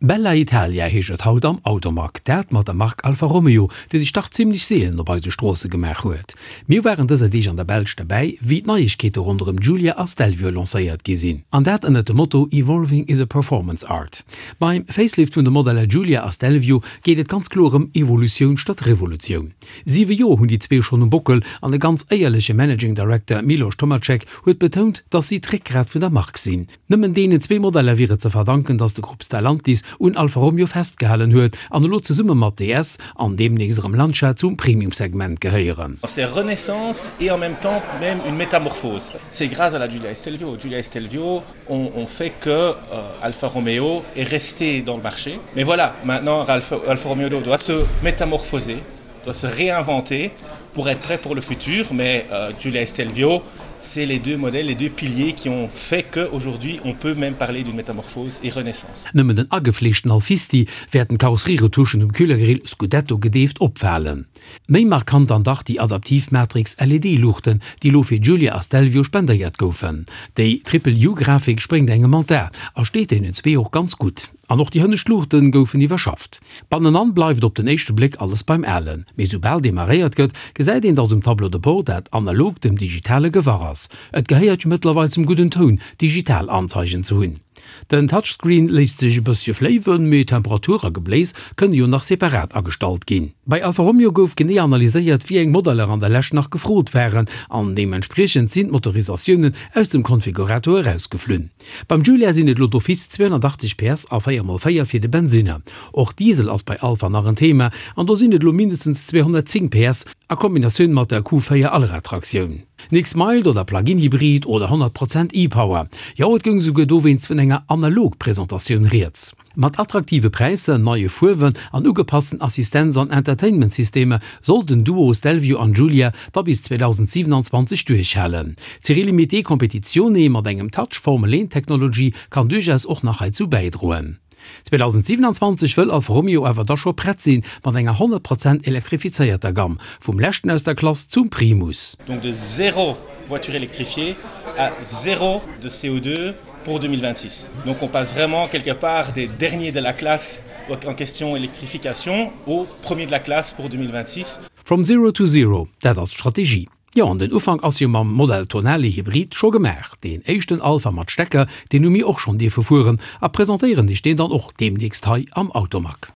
Bella Italia heescht et haut am Automag, dat mat der Mark Alfa Romeo, déi sech dach zimlech seelen op eise Stroosse gemaach huet. Mir waren dëser Deeg an der Belsch derbäi, wéi d'Neiegkeete ronderëm Giulia a Stelvio lancéiert gi sinn. An dat ënnert dem Motto Evolving is a performance art. Beim Facelift vun de Modeller Giulia a Stelvio geet et ganz kloer ëm Evolutioun statt Revolutioun. Siwe Joer hunn déi zwee schonn um Bockel an de ganz éierleche Managing Director Miloš Tomacek huet betount, dass si d'Réckgrat vun der Mark sinn. Nëmmen deenen zwee Modeller wier et ze verdanken, datt de Grupp Stellantis un Alfa Romeo festgehalen huet an elo zesumme mat DS an deemnächst erëm Lancia zum Premium-Segment gehéieren. C'est renaissance et en même temps même une métamorphose. C'est grâce à la Giulia e Stelvio. Giulia e Stelvio ont, ont fait que euh, Alfa Romeo est resté dans le marché. Mais voilà, maintenant Alfa, Alfa Romeo doit se métamorphoser, doit se réinventer pour être prêt pour le futur. Mais euh, Giulia e Stelvio, c'est les deux modèles, les deux piliers qui ont fait qu'aujourd'hui on peut même parler d'une métamorphose et renaissance. Nëmmen den agefleeschten Alfisti wäerten d'Karosserieretouchen um Kühlergrill Scudetto gedeeft opfalen. Méi markant dann dach déi adaptiv Matrix LED-Luuchten, déi elo fir Giulia a Stelvio spendéiert goufen. Déi Triple-U-Grafik spréngt engem an d'A a steet deenen zwee och ganz gutt. An och déi hënnescht Luuchten goufen iwwerschafft. Bannenan bleift op den éischte Bléck alles beim Alen, mee soubal demarréiert gëtt, gesäit een, dass um Tableau de bord dat Analogt dem Digitale gewach ass. Et gehéiert jo mëttlerweil zum gudden Toun, digital Anzeigen ze hunn. Den Touchscreen léisst sech e bëssche fléiwen, mee Temperatur a Gebléis kënne jo nach separat agestallt ginn. Bei Alfa Romeo gouf genee analyséiert, wéi eng Modeller an der Lescht nach gefrot waren, an deementspriechend sinn d'Motorisatiounen aus dem Konfigurator erausgeflunn. Beim Giulia sinn et elo d'office 280 PS a 4 mol 4 fir de Bensinner. Och Diesel ass bei Alfa nach en Thema an do sinn et elo mindestens 210 PS a Kombinatioun mat der Q4 Allradtraktioun. Nix Mild oder Plug-in Hybrid oder 100 Prozent e-Power. Jo, et goung esouguer dowéinst vun enger Analog-Presentatioun rieds. Mat attraktive Präisser, neie Fuerwen an ugepassten Assistenz an Entertainment-Systemer soll den Duo Stelvio an Giulia da bis 2027 duerchhalen. D'Série Limitée Competizione mat engem Touch Formel 1 Technology kann duerchaus och nach heizou bäidroen. 2027 wëll Alfa Romeo awer da scho prett sinn mat enger 100 Prozent elektrifizéierter Gamm, vum leschten aus der Klass zum Primus. Donc de zéro voiture électrifiée à zéro de CO2 pour 2026. Donc on passe vraiment quelque part des derniers de la classe en question électrification au premier de la classe pour 2026. From zero to zero, dat ass d'Strategie. Jo, an den Ufank ass jo mam Modell Tonale Hybrid scho gemaach. Deen éischten Alfa mat Stecker, deen hu mir och schonn dierfe fueren a presentéieren iech deen dann och deemnächst hei am Automag.